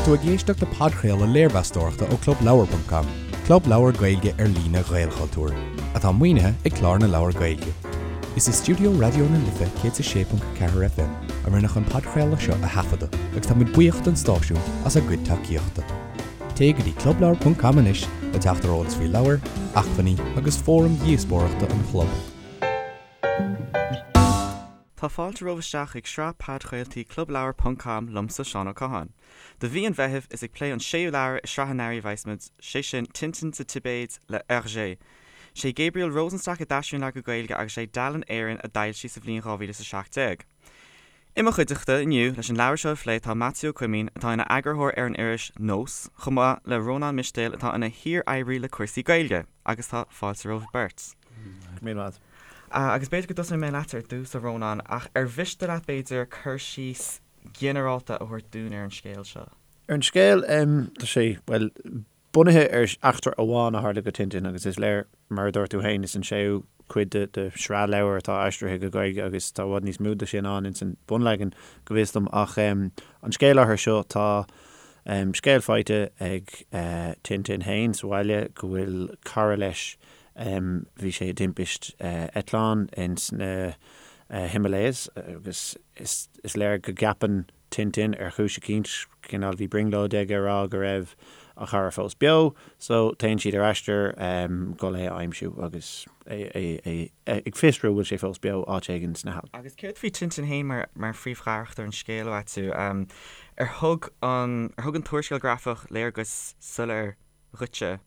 tú ag éisteacht le podchraoladh léirmheastóireachta ó ClubLeabhar.com, club leabhar Gaeilge ar líne Ghaelchultúir, atá maoinithe ag Clár na Leabhar Gaeilge. Is i stiúideo Raidió na Life 106.4 FM a rinneadh an podchraoladh seo a thaifeadadh agus tá muid buíoch don stáisiún as a gcuid tacaíochta. Téigh go dtí clubleabhar.com anois le teacht ar eolas faoi leabhair, acmhainní agus fóraim dhíospóireachta an chlub. Tá fáilte romhaibh isteach chuig sraith podchraoltaí Clubleabhar ponc com liomsa Seán Ó Catháin. Do mhí an Mheithimh is ag plé an séú leabhar i sraith an earraigh a bheas muid, sé sin Tintin sa Tibéid le Hergé. Sé Gabriel Rosenstock a d'aistrigh an leabhar go Gaeilge agus sé Dalen Éireann a d'fhoilsigh sa bhliain 2017. I mo chuideachta inniu leis an leabhar seo a phlé tá Maitiú Ó Coimín atá ina eagarthóir ar an iris Nós, chomh maith le Rónán Mistéil atá ina shíor-oibrí le cúrsaí Gaeilge. Agus tá fáilte romhaibh beirt. Go raibh míle maith. Agus b'fhéidir go dtosóidh mé leatsa ar dtús, a Rónáin, ach ar mhiste leat, b'fhéidir, cur síos ginearálta a thabhairt dúinn ar an scéal seo? Ar an scéal, tá sé, bhuel, bunaithe ar eachtra amháin a tharla go Tintin agus is léir, mar a dúirt tú féin, is an séú cuid de shraith leabhar atá aistrithe go Gaeilge agus tá i bhfad níos mó de sin ann ins an bunleagan, go bhfios dom. Ach an scéal áirithe seo, tá scéal faighte ag Tintin féin sa bhaile go bhfuil cara leis, Bhí sé i dtimpist eitleáin ins na Himalayas agus is léir go gceapann Tintin ar chúis eicínt, cineál bhí brionglóid aige a rá go raibh a chara fós beo, so téann siad ar aistear dhul é a aimsiú agus é ag fiosrú an bhfuil sé fós beo áit éigin sna hAilp. Agus céard faoi Tintin féin mar phríomhcharachtar an scéil, a Mhaitiú? Ar thug an ar thug an t-úrscéal grafach léargas soiléir dhuitse?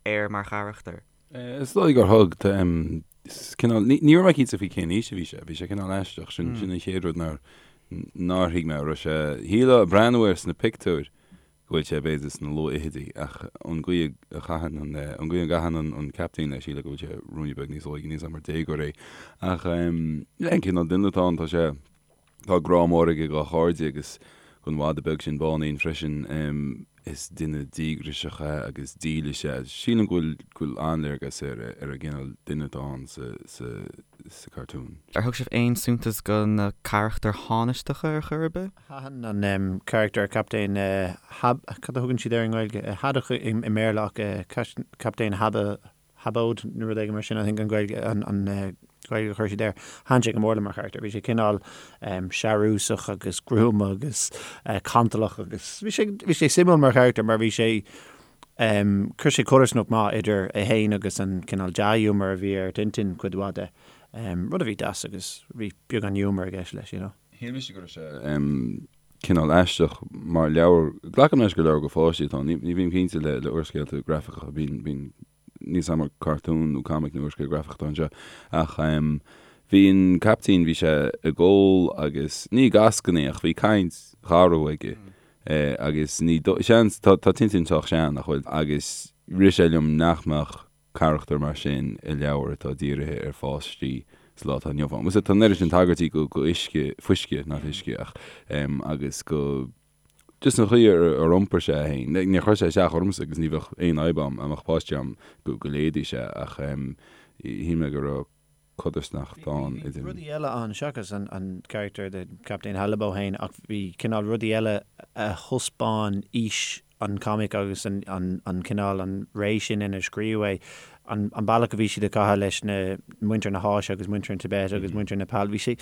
air mar charachtar. Is dóigh gur thug. Cineál, ní raibh mé cinnte faoi cén aois a bhí sé. Bhí sé cineál aisteach. Sin sin an chéad rud nár nár thuig mé. Raibh sé, shílfeá ag breathnú air sna pictiúir go bhfuil sé b'fhéidir sna luathfhichidí ach an gcaoi a chaitheann an an gcaoi a gcaitheann an an captaen leis shílfeá go bhfuil sé ruainne beag níos óige, níl a fhios agam ar déagóir é. Ach yeah, an cineál duine atá ann, tá sé Tá grá mór aige dá chairde agus don mhadadh beag sin Báinín freisin. Is duine díograiseach é agus dílis é. Sílim go bhfuil go bhfuil an-léargas ar ar an gcineál duine atá ann sa sa sa cartún. Ar thug sibh aon suntas go na carachtair thánaisteacha ar chor ar bith? Thaitin an carachtar Captaen Hab, cad a thugann siad air i nGaeilge? Haddock i mBéarla ach Captaen Haba Habóid nó rud éigin mar sin, I think an Ghaeilge, an Ghaeilge a chuir siad air. Thaitin sé go mór liom mar charachtar. Bhí sé cineál searúsach agus gruama agus cantalach agus bhí sé, bhí sé suimiúil mar charachtar mar bhí sé, chuir sé codarsnacht maith idir é féin agus an cineál dea-ghiúmar a bhí ar Tintin cuid mhaith de. Rud a bhí deas agus bhí beagán giúmar i gceist leis, you know. Shíl mise go raibh sé cineál aisteach mar leabhar, glacaim leis gur leabhar do pháistí atá ann, ní bhím cinnte le le úrscéalta grafacha, bíonn bíonn níl a fhios agam ar cartún nó comic nó úrscéal grafach atá anseo ach bhí an caiptín, bhí sé ag ól agus ní ag eascainí ach bhí caint gharbh aige agus ní seans, tá tá Tintin sách sean nach bhfuil agus rith sé liom nach mbeadh carachtar mar sin i leabhar atá dírithe ar pháistí sa lá atá inniu ann. Bhuel, tá an oiread sin tagairtí go go uisce, fuisce, not uisce, ach em agus go just an chaoi ar ar iompair sé é féin. Níor chuir sé isteach ormsa agus ní bheadh aon fhadhb agam dá mbeadh páistí agam go go léifeadh sé ach em shíl mé go raibh codarsnacht ann idir. Bhí rudaí eile ann seachas an carachtar de Captaen Halibó féin ach bhí cineál rudaí eile a thaispeáin aois an comic agus an cineál an ré sin inar scríobhadh é, an bealach a bhí siad ag caitheamh leis na muintir na hÁise agus muintir an Tibet agus muintir Nepal. Bhí sé,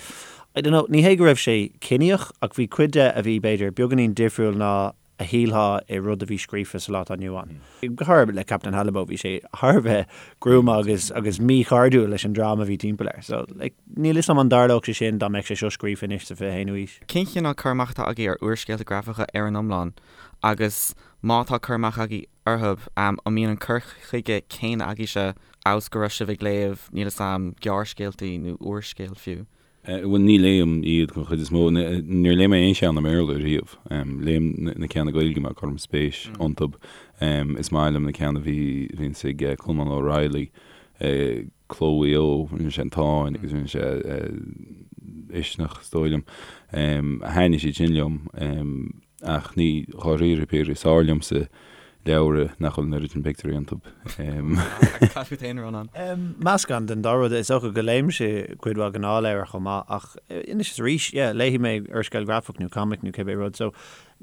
I don't know, ní hé go raibh sé ciníoch ach bhí cuid de a bhí b'fhéidir beagáinín difriúil ná a shílfeá i rud a bhí scríofa sa lá atá inniu ann. Go háirithe le Captain Halibó, bhí sé thar a bheith gruama agus agus míchairdiúil leis an dream a bhí timpeall air. So, like, níl 'fhios a'm an dtarlódh sé sin dá mbeadh sé seo scríofa anois sa 21ú aois. Cén chineál cur amach atá agaibh ar úrscéalta grafacha ar an iomlán agus má tá cur amach agaibh orthu, an mbíonn an cur chuige céanna agaibhse amhail is go raibh sibh ag léamh, níl 'fhios a'm, gearrscéaltaí nó úrscéal fiú? Bhuel, ní léim iad den chuid is mó. Níor léigh mé aon cheann i mBéarla riamh. Léim na ceanna Gaeilge mar cuirim spéis iontu. Is maith liom na ceanna a bhí, bhíonns ag Colmán O'Reilly, Cló Mhaigh Eo, rinne sé An Táin agus rinne sé Uisneach, is dóigh liom. Thaitnigh siad sin liom. Ach ní, dháiríre píre, is fearr liomsa leabhra nach bhfuil an oiread sin pictiúirí iontu. Agus cad fút féin, a Rónáin? Meascán den dá rud. Is dócha go léimse cuid mhaith gnáthleabhar chomh maith ach anois is arís, yeah, léifidh mé úrscéal grafach nó comic nó cibé rud so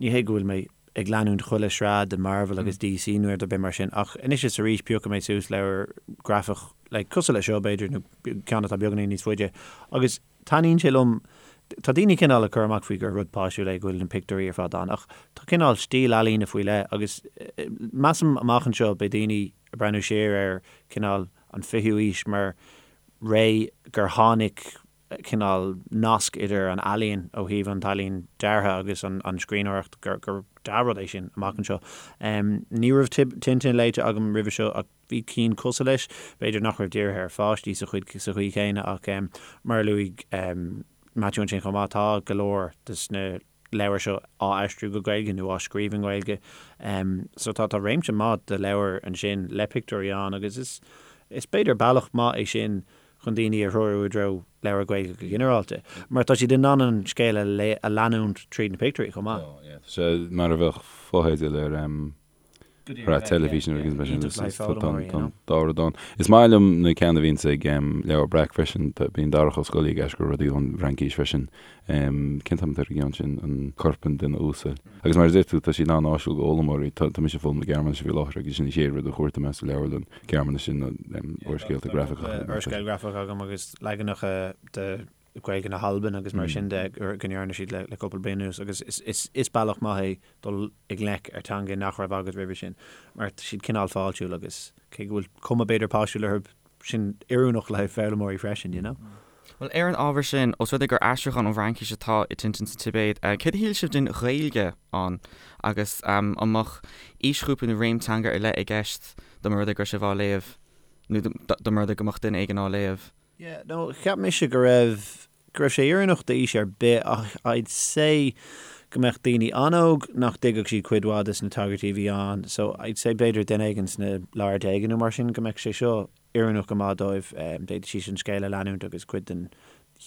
ní hé go bhfuil mé. ag leanúint chuile shraith de Marvel agus DC nó rud ar bith mar sin ach anois is arís piocfaidh mé suas leabhar grafach like cosúil le seo b'fhéidir nó ceann atá beagáinín níos faide agus taitníonn sé liom tá daoine cineál ag cur amach faoi gur rud páistiúil é go bhfuil na pictiúirí ar fad ann ach tá cineál stíl ealaíne faoi leith agus measaim amach anseo beidh daoine ag breathnú siar ar cineál an fichiú aois mar ré gur tháinig cineál nasc idir an ealaín ó thaobh an t-ealaín deartha agus an scríbhneoireacht gur dea-rud é sin amach anseo. Ní raibh Tintin léite agam roimhe seo ach bhí cinn cosúil leis, b'fhéidir nach raibh dírithe ar pháistí sa chuid sa chaoi chéanna ach mar a luaigh Maitiú ansin chomh maith tá go leor des na leabhair seo á aistriú go Gaeilge nó á scríobh i nGaeilge. So tá tá réimse maith de leabhair ansin le pictiúirí ann agus is is b'fhéidir bealach maith é sin chun daoine a threorú i dtreo leabhar Gaeilge go ginearálta, mar tá siad in ann an scéal a a leanúint tríd na pictiúirí chomh maith. Tá, yeah. Tá sé mar a bheadh fotheidil ar shraith teilifíse nó rud éigin mar sin. Tá an dá rud ann. Is maith liom na ceanna a bhíonns ag Leabhar Breac freisin. Bíonn Darach Ó Scolaí ag aistriú rudaí ón bhFraincís freisin. Cén t-ainm atá ar an gceann sin? An Corp an Duine Uasail. Agus mar a deir tú, tá siad an-áisiúil do fhoghlaimeoirí. Tá mise ag foghlaim na Gearmáinise faoi láthair agus sin an chéad rud a chuartaigh mé sa leabharlann Gearmáinise ná úrscéalta grafacha. Úrscéal grafach agam agus leaganacha de Ghaeilge na hAlban agus mar sin de go ndearna siad le cúpla bliain anuas agus is bealach maith é dul i ngleic ar teanga nach raibh agat roimhe sin mar tá siad cineál fáiltiúil agus cé go bhfuil cuma b'fhéidir páistiúil orthu sin oiriúnach le haghaidh foghlaimeoirí freisin, you know. Bhuel, ar an ábhar sin, os rud é gur aistriúchán ón bhFraincís atá i Tintin sa Tibéid, céard a shíl sibh den Ghaeilge ann agus an mbeadh aoisghrúpa nó réim teanga ar leith i gceist dá mba rud é go raibh sibh á léamh nó dá mba rud é go mbeadh duine éigin á léamh? Yeah, no, cheap mise go raibh, go raibh sé oiriúnach d'aois ar bith ach I'd say go mbeadh daoine an-óg nach dtuigfeadh siad cuid mhaith des na tagairtí a bhí ann so I'd say b'fhéidir duine éigin sna lár déaga nó mar sin go mbeadh sé seo oiriúnach go maith dóibh, d'fhéadfadh siad an scéal a leanúint agus cuid den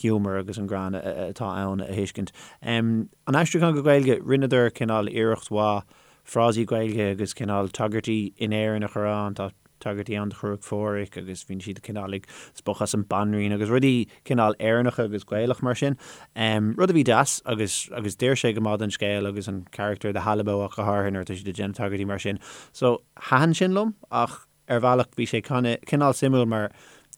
humour agus an greann atá ann a thuiscint. An aistriúchán go Gaeilge, rinneadar cineál iarracht mhaith frásaí Gaeilge agus cineál tagairtí in Éirinn a chur ann, tá tagairtí ann do Chruach Phádraig agus bíonn siad cineál ag spochadh as an Banríon agus rudaí cineál Éireannacha agus Gaelach mar sin. Rud a bhí deas agus agus d'oir sé go maith don scéal agus an carachtar de Halibo ach go háirithe nuair atá siad ag déanamh tagairtí mar sin. So thaitin sin liom ach ar bhealach bhí sé cineál suimiúil mar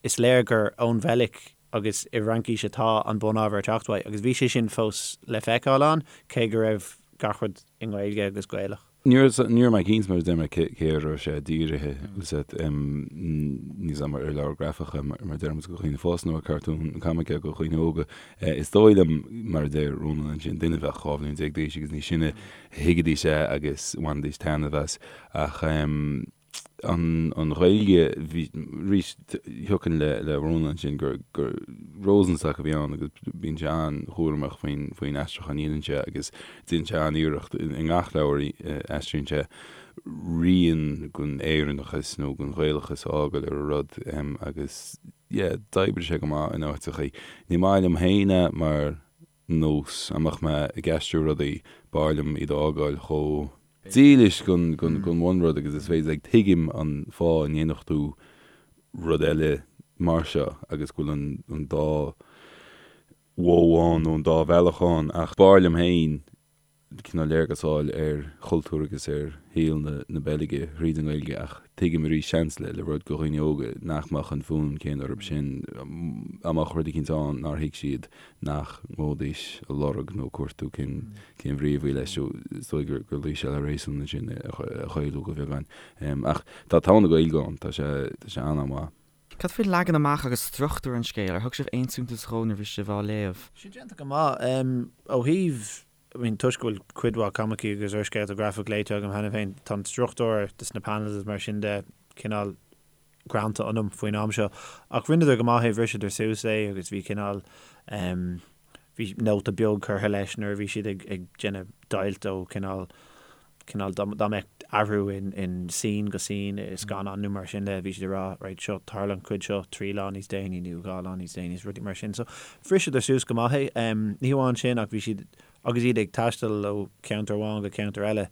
is léir gur ón Bheilg agus i bhFraincís atá an bunábhar ag teacht uaidh agus bhí sé sin fós le feiceáil ann cé go raibh gach rud i nGaeilge agus Gaelach. Ní raibh mé cinnte mar a deir mé cé a raibh sé dírithe níl a fhios agam ar leabhar grafach mar a deir muid do dhaoine fásta nó ar cartún comic do dhaoine óga. Is dóigh liom mar a deir Rónán ansin duine a bheadh 12 bhliain d'aois agus níos sine thuigfidís é agus bhainfidís taitneamh as ach an Ghaeilge, bhí, arís, thiocfainn le le Rónán ansin gur gur Rosenstock a bhí ann agus bíonn sé an-chúramach faoin faoin aistriúchán a dhéanann sé agus déanann sé an-iarracht i ngach leabhar a aistríonn sé rian den Éireannachas nó den Ghaelachas a fhágáil ar an rud agus yeah d'oibrigh sé go maith in áiteachaí. Ní maith liom féin é mar nós, dá mbeadh mé ag aistriú rudaí, b'fhearr liom iad a fhágáil chomh dílis don bhunrud agus is féidir. Like, tuigim an fáth a ndéanfadh tú rud eile mar seo agus go bhfuil an dá mhodh ann nó an dá bhealach ann ach b'fhearr liom féin cineál léargas a fháil ar chultúr agus ar shaol na Beilge thríd an nGaeilge ach tuigim arís seans le le rud do dhaoine óga nach mbeadh an fonn céanna orthu sin dá mbeadh rud eicínt ann nár thuig siad nach ngabhfaidís a lorg nó cuartú cén cén bhrí a bhí leis so is dóigh gur gur luigh sé le réasún ansin a chaolú go bheagán ach tá togha na Gaeilge ann tá sé tá sé an-an-mhaith. Cad faoi leagan amach agus struchtúr an scéil? Ar thug sibh aon suntas dhó nuair a bhí sibh á léamh? Sé déanta go maith. Ó thaobh, I mean, toisc go bhfuil cuid mhaith coimicí agus úrscéalta grafach léite agam cheana féin, tá an struchtúr des na panels is mar sin de cineál greanta ionam faoin am seo. Ach rinneadar go maith é, bhriseadar suas é agus bhí cineál, bhí nóta beag curtha leis nuair a bhí siad ag ag déanamh deighilt ó cineál cineál dá dá mbeadh athrú in in scene go scene i scannán nó mar sin de bhí siad ag rá right seo tharla an chuid seo 3 lá níos déanaí nó 2 lá níos déanaí is rudaí mar sin so bhriseadar suas go maith é. Ní hamháin sin ach bhí siad agus iad ag taisteal ó cheantar amháin go ceantar eile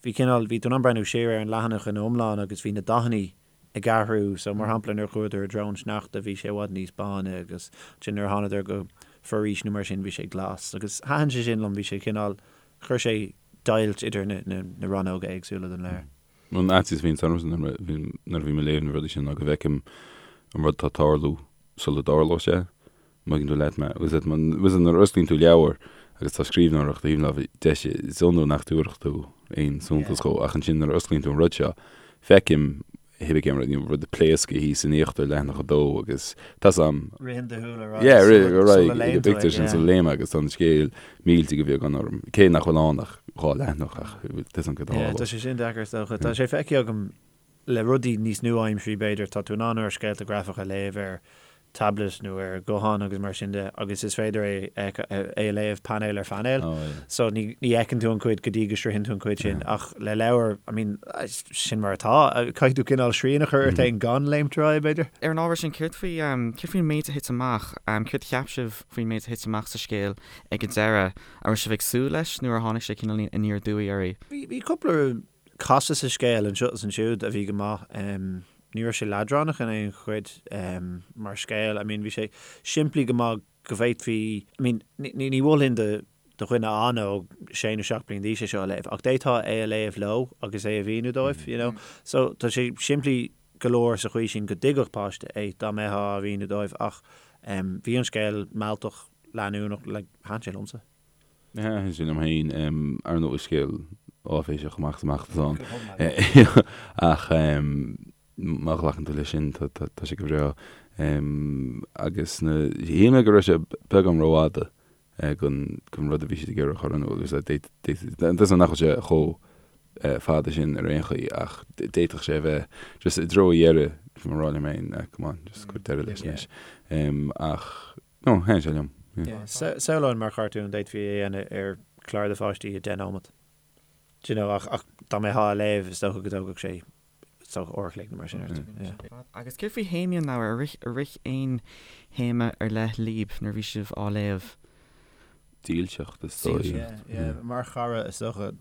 bhí cineál bhí tú in ann breathnú siar ar an leathanach ina iomlán agus bhí na dathannaí ag athrú. So, mar shampla, nuair a chuadar i dtreo an sneachta, bhí sé i bhfad níos báine agus ansin nuair a thánadar go foraois nó mar sin, bhí sé glas. Agus thaitin sé sin liom, bhí sé cineál, chuir sé deighilt idir na rannóga éagsúla den leabhar. An fhaitíos a bhíonns ormsa nuair a bhím ag léamh na rudaí sin ná go bhfeicim an rud atá ag tarlú sula dtarlóidh sé. Má thuigeann tú leat mé. Agus nuair a osclaíonn tú leabhar agus tá scríbhneoireacht taobh na láimhe deise, is iondúil nach dtabharfadh tú aon suntas dhó ach ansin nuair a osclaíonn tú an rud seo, feicim hibé cén rud, rud ag pléascadh thíos in íochtar leathanach a dó agus tá 's a'm. Ritheann do shúil ar aghaidh Yeah, rith ar sula aghaidh ag léann an tú é, bpictiúr sin yeah. sula léim agus tá an scéal millte de bheagán orm. Cé nach bhfuil ann ach dhá leathanach ach tá 's a'm cad a Yeah, tá sé sin deacair is dócha. Tá sé feicthe agam le rudaí níos nua-aimsirí b'fhéidir, tá tú in ann úrscéalta grafacha a léamh ar tablet nó ar ghuthán agus mar sin de agus is féidir é é a léamh painéal ar phainéal. So ní ní fheiceann tú an chuid go dtí go sroicheann tú an chuid sin ach le leabhar, I mean, sin mar atá. Caithfidh tú cineál srian a chur ort féin gan léimt ar aghaidh, b'fhéidir. Ar an ábhar sin, céard faoi céard faoin méid a thit amach? Céard a cheap sibh faoin méid a thit amach sa scéal ag an deireadh? An raibh sibh ag súil leis nó ar tháinig sé cineál aniar aduaidh oraibh? Bhí bhí cúpla casadh sa scéal anseo is ansiúd a bhí go maith. Ní raibh sé leadránach in aon chuid mar scéal. I mean bhí sé simplí go maith go bhféadfaí, I mean ní mholfainn do dhuine an-óg, sé nó 7 bliain d'aois é seo a léamh, ach d'fhéadfá é a léamh leo agus é a mhíniú dóibh, you know. So tá sé simplí go leor sa chaoi sin go dtuigfeadh páiste é dá mbeifeá á mhíniú dóibh ach bhí an scéal mealltach, leanúnach, like thaitin sé liomsa. Thaitin sé liom féin, ar ndóigh is scéal áiféiseach amach is amach atá ann. Ach má ghlacann tú leis sin, tá sé go breá. Agus na, shíl mé go raibh sé beagán rófhada don rud a bhí siad ag iarraidh a chur in iúl. Tá nach bhfuil sé chomh fada sin ar aon chaoi ach d'fhéadfadh sé a bheith just i dtreo a dheireadh, bhí mé ag rá liom féin, come on, just cuir deireadh leis anois. Ach No, thaitin sé liom. Yeah. Samhlóinn mar chartún, d'fhéadfaí é a dhéanamh ar chlár do pháistí i 10 nóiméad. Do you know, ach, ach dá mbeifeá á léamh, is dócha go dtógfadh sé, is dócha, uair a chloig nó mar sin ort. Yeah. Agus céard faoi théamaí an leabhair? Ar rith, ar rith aon théama ar leith libh nuair a bhí sibh á léamh? Dílseacht, is dóigh. Yeah, yeah. Mar chara, is dócha,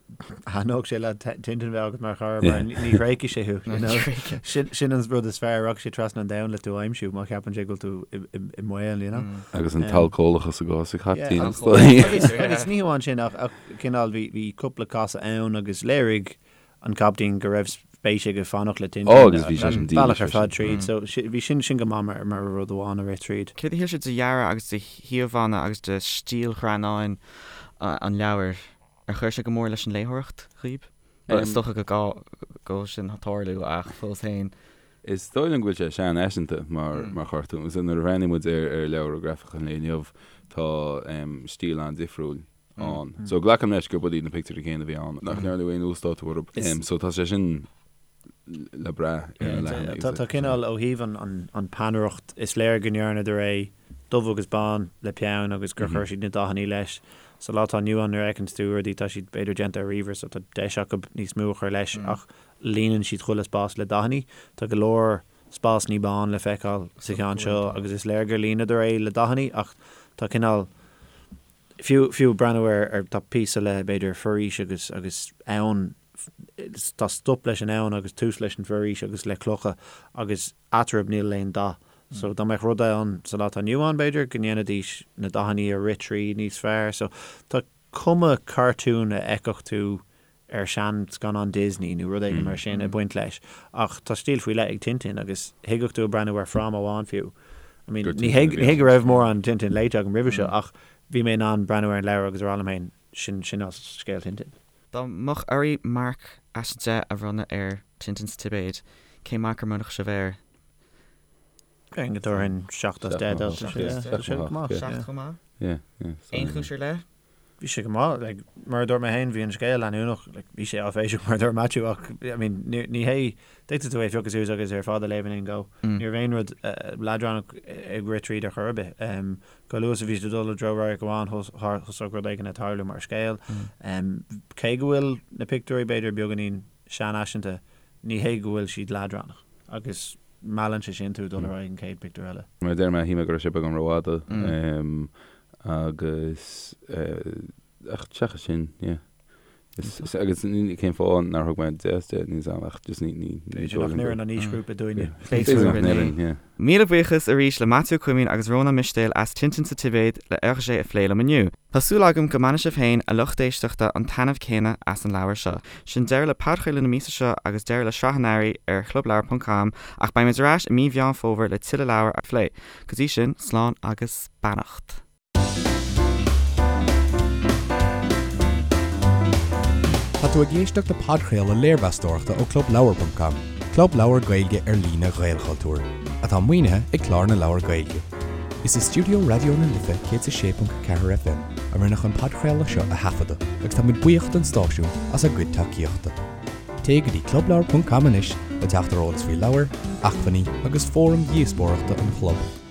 thaitneodh sé le Tintin bheith agat mar chara, mar ní thréigfidh sé thú, you know. Sin, sin an rud is fearr, rachaidh sé trasna an domhain le tú a aimsiú má cheapann sé go bhfuil tú i, i, i mbaol, you know. Agus an t-alcólachas i gcás an chaiptín, is dóigh. Agus, agus ní hamháin sin, ach, ach cineál bhí, bhí cúpla casadh ann agus léirigh an captaen go raibh spéis aige fanacht le Tintin Ó, agus bhí sé sin bealach ar fad tríd. So bhí sin sin go maith mar mar rud amháin a rith tríd. Céard a shíl sibh de dhearadh agus de híomhánna agus de stíl ghreannáin an leabhair? Ar chuir sé go mór leis an léitheoireacht dhaoib? Bhuel, is dócha go go bhfuil sin ag tarlú ach fós féin. Is dóigh liom go bhfuil sé seanfhaiseanta mar mar chartún. Nuair a bhreathnaíonn muid ar ar leabhra grafacha an lae inniu tá stíl an-difriúil ann. So glacaim leis gurb iad na pictiúirí céanna a bhí ann, nach ndearnadh aon uasdátú orthu. So tá sé sin le brath ar na leathanaigh. Tá cineál ó thaobh an peannaireacht, is léir go ndearnadar é dubh agus bán le peann agus gur chuir siad na dathannaí leis. Sa lá atá inniu ann nuair a fheiceann tú rudaí tá siad b'fhéidir déanta ar ríomhaire so tá deis acu níos mó a chur leis ach líonann siad chuile spás le dathannaí. Tá go leor spásannaí bán le feiceáil sa cheann seo agus is léir gur líonadar é le dathannaí ach tá cineál Fiú, fiú breathnú ar, ar, tá píosa le, b'fhéidir, foraois agus, agus abhainn, tá stop leis an abhainn agus tús leis an bhforaois agus le clocha agus eatarthu níl aon dath. So dá mbeadh rud ann sa lá atá inniu ann, b'fhéidir, go ndéanfaidís na dathannaí a rith tríd níos fearr. So tá cuma cartún a fheicfeadh tú ar shean-scannán Disney nó rud éigin mar sin ag baint leis ach tá stíl faoi leith ag Tintin agus thigeadh tú ag breathnú ar fráma amháin fiú. I mean, ní hé ní hé go raibh mórán Tintin léite agam roimhe seo ach bhí mé in ann breathnú ar an leabhar agus a rá liom féin, sin sin as scéal Tintin. Dá mbeadh oraibh marc as 10 a bhronnadh ar Tintin sa Tibéid, cén marc a mbronnfadh sibh air? Déarfainn go dtabharfainn 7 as 10 dó. Tá sé go maith. 7 chomh maith? Aon chúis ar leith? Bhí sé go maith. Like, mar a dúirt mé féin, bhí an scéal leanúnach. Like, bhí sé áiféiseach mar a dúirt Maitiú ach, I mean, ní, ní hé, d'fhéadfadh tú é a phiocadh suas agus é ar fad a léamh in aon go. Ní raibh aon rud leadránach ag rith tríd ar chor ar bith. Um, chomh luath is a bhí siad ag dul i dtreo radharc amháin, thosódh rud éigin ag tarlú mar scéal. Um, cé go bhfuil na pictiúirí b'fhéidir beagáinín seanfhaiseanta, ní hé go bhfuil siad leadránach. Agus meallann sé sin tú dul ar aghaidh an chéad pictiúr eile. Mar a deir mé, shíl mé go raibh sé beagán rófhada agus ach seachas sin, yeah. Is agus cén fáth nár thug mé 10 as 10 níl 's a'm ach just ní ní ní B'fhéidir nach n-oireann an aoisghrúpa dúinne. B'fhéidir nach n-oireann, yeah. Míle buíochas arís le Maitiú Ó Coimín agus Rónán Mistéil as Tintin sa Tibéid le Hergé a phlé liom inniu. Tá súil agam go mbainfidh sibh féin, a lucht éisteachta, an taitneamh céanna as an leabhar seo. Sin deireadh le podchraoladh na míosa seo agus deireadh le sraith an earraigh ar chlubleabhar.com ach beidh muid ar ais i mí Mheán Fómhair le tuilleadh leabhar a phlé. Go dtí sin, slán agus beannacht. Tá tú ag éisteacht le podchraoladh léirmheastóireachta ó ClubLeabhar.com, club leabhar Gaeilge ar líne Ghaelchultúir, atá maoinithe ag Clár na Leabhar Gaeilge. Is i stiúideo Raidió na Life 106.4 FM a rinneadh an podchraoladh seo a thaifeadadh agus tá muid buíoch don stáisiún as a gcuid tacaíochta. Téigh go dtí clubleabhar.com anois le teacht ar eolas faoi leabhair, acmhainní agus fóraim dhíospóireachta an chlub.